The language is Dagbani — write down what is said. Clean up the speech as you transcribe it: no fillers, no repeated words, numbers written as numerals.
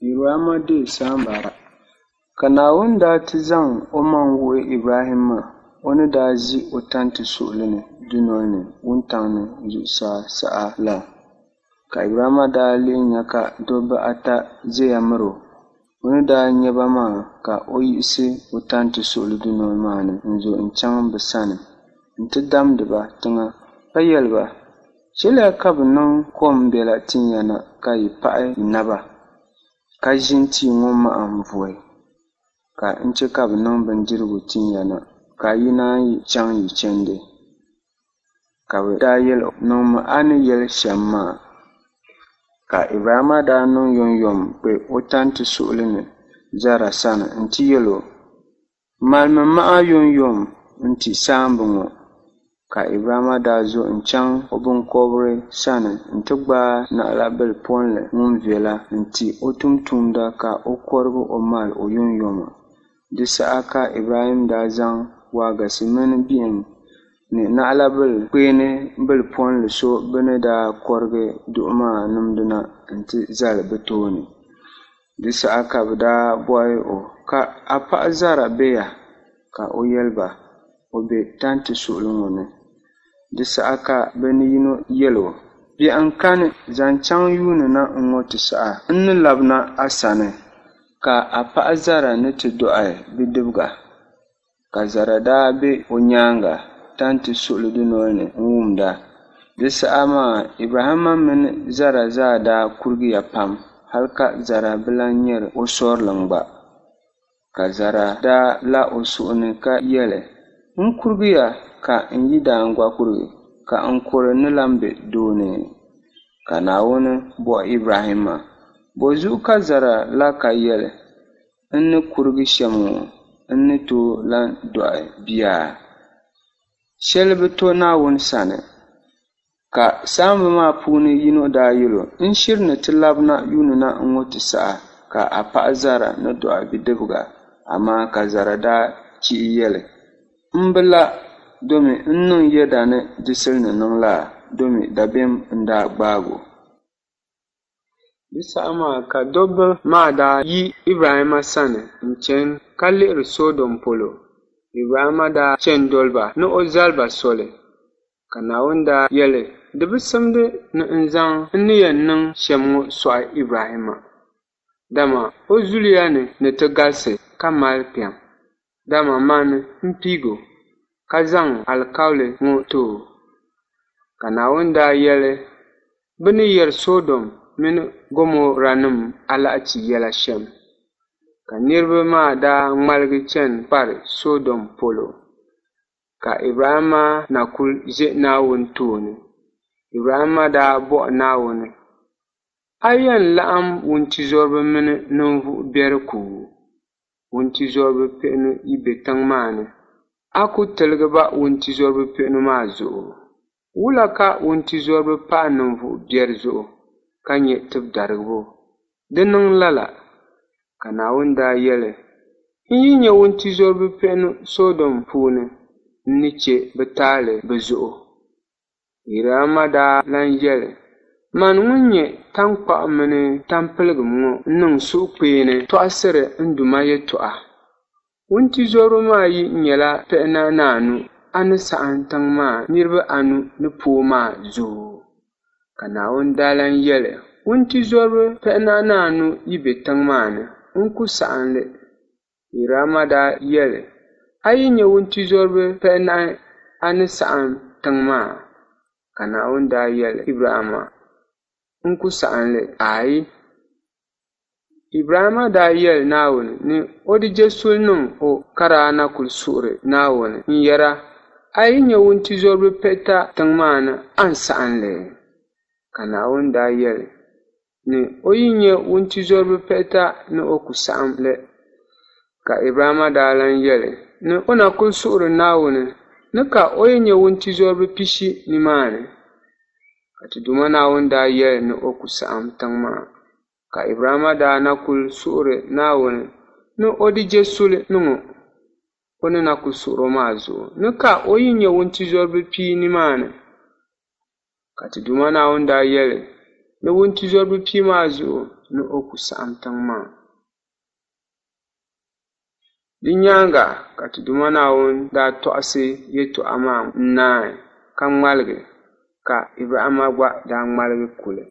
Ibrahimma deei saamba ata. Ka Naawuni daa ti zaŋ omaŋ wuhi Ibrahimma o ni daa ʒi o tanti suɣili ni dunol ni wuntaŋ ni zuɣusaa saha la. Ka Ibrahimma daa lihi nya ka dɔbba ata ʒiɛya mir o. O ni daa nya ba maa ka o yiɣisi o tanti suɣili dunol maa ni n-zo n-chaŋ bɛ sani nti damdi ba tiŋa ka yɛli ba, Chɛliya ka bɛ niŋ kom biɛla tin ya na ka yi paɣi yi naba, ka ʒini tia ŋɔ mahim vuhi, ka n chɛ ka bɛ niŋ bindirigu tin ya na, ka yi naan yi chaŋ yi chandi. Ka bɛ daa yɛl o, Niŋmi a ni yɛli shɛm maa. Ka Ibrahimma daa niŋ yomyom kpe o tanti suɣili ni Zara sani nti yɛl o, Malimi maha yomyom nti saamba ŋɔ. Ka Ibrahimma daa zo n-chaŋ o biŋkɔbiri sani nti gbaai naɣilabil polli ŋun viɛla n-ti o tumtumda ka o kɔrig o mal o yomyoma. Di saha ka Ibrahim daa zaŋ waagasi mini bihim ni naɣilabil kpeeni bilipolli so bɛ ni daa kɔrigi duɣi maa nimdi na nti zali bɛ tooni. Di saha ka bɛ daa bɔhi o, Ka a paɣ Zara be ya? Ka o yɛli ba, O be tanti suɣili ŋɔ ni. Di saha ka bɛ ni yino yɛl o, Biɛhiŋ kani, zaŋ chaŋ yuuni na ŋ-ŋɔ ti saha, n ni labina a sani, ka a paɣ Zara ni ti dɔɣi bidibiga. Ka Zara daa be o nyaaŋa tanti suɣili dunol ni n-wumda. Di saha maa Ibrahimma mini Zara zaa daa kurigiya pam hal ka Zara bi lan nyar o sɔrilim gba. Ka Zara daa lah o suhu ni ka yɛli, N kurigiya ka n yidaan gba kurigi, ka n kɔre ni lan be doo ni. Ka Naawuni bɔhi Ibrahimma, Bɔzuɣu ka Zara la ka yɛli, N ni kurigi shɛm ŋɔ, n ni tooi lan dɔɣi bia? Shɛli bi to Naawuni sani. Ka saamba maa puuni yino daa yɛl o, N shiri ni ti labina yuuni na ŋ-ŋɔ ti saha, ka a paɣ Zara ni dɔɣi bidibiga. Amaa ka Zara daa chihi yɛli, M bi la, domi n niŋ yɛda ni di sili ni niŋ laa, domi dabiɛm n-daa gbaag o. Di saha maa ka dɔbba maa daa yi Ibrahimma sani n-chani ka lihiri Sɔdom polo. Ibrahimma daa chani doli ba ni o zali ba soli. Ka Naawuni daa yɛli, Di bi simdi ni n zaŋ n ni yɛn niŋ shɛm ŋɔ sɔɣi Ibrahimma, dama o zuliya ni ni ti galisi ka mali kpiɔŋ, dama mani m-piig o, ka zaŋ alikauli ŋɔ ti o. Ka Naawuni daa yɛli, Bɛ ni yɛri Sɔdom mini Gomɔranim alahichi yɛla shɛm. Ka niriba maa daa ŋmaligi chani kpari Sɔdom polo. Ka Ibrahimma na kul ʒe Naawuni tooni. Ibrahimma daa bɔhi Naawuni, A yɛn laɣim wuntizɔriba mini ninvuɣ biɛri ku? Wuntizɔriba pihinu yi be tiŋ maa ni, a ku tiligi ba wuntizɔriba pihinu maa zuɣu? Wula ka wuntizɔriba pahi ninvuɣ biɛri zuɣu ka nya tibidarigibo? Di niŋ lala! Ka Naawuni daa yɛli, N yi nya wuntizɔriba pihinu Sɔdom puuni, n ni chɛ bɛ taali bɛ zuɣu. Ibrahimma daa lan yɛli, Mani ŋun nyɛ taŋkpaɣu mini tampiligim ŋɔ n-niŋ suhukpeeni tɔɣisiri n Duuma yɛtɔɣa. Wuntizɔriba maa yi nyɛla pihinahi ni anu, a ni saɣim tiŋ maa niriba anu ni pooi maa zuɣu. Ka Naawuni daa lan yɛli, Wuntizɔriba pihinahi ni anu yi be tiŋ maa ni, n ku saɣim li. Ibrahimma daa yɛli, A yi nya wuntizɔriba pihinahi, a ni saɣim tiŋ maa? Ka Naawuni daa yɛli Ibrahimma, N ku saɣim li, aai! Ibrahimma daa yɛli Naawuni ni o di je suli niŋ o ka daa na kul suhiri Naawuni n-yɛra, A yi nya wuntizɔriba pihita tiŋ maa ni, a ni saɣim li? Ka Naawuni daa yɛli ni o yi nya wuntizɔriba pihita ni o ku saɣim li. Ka Ibrahimma daa lan yɛli ni o na kul suhiri Naawuni ni ka o yi nya wuntizɔriba pishi nimaani. Ka ti Duuma Naawuni daa yɛli ni o ku saɣim tiŋ maa. Ka Ibrahimma daa na kul suhiri Naawuni ni o di je suli niŋ o, o ni na kul suhir o maa zuɣu ni ka o yi nya wuntizɔriba pia nimaani. Ka ti Duuma Naawuni daa yɛli ni wuntizɔriba pia maa zuɣu ni o ku saɣim tiŋ maa. Di nyaaŋa ka ti Duuma Naawuni daa tɔɣisi yɛtɔɣa maa n-naai ka ŋmaligi, ka Ibrahimma gba daa ŋmaligi kuli.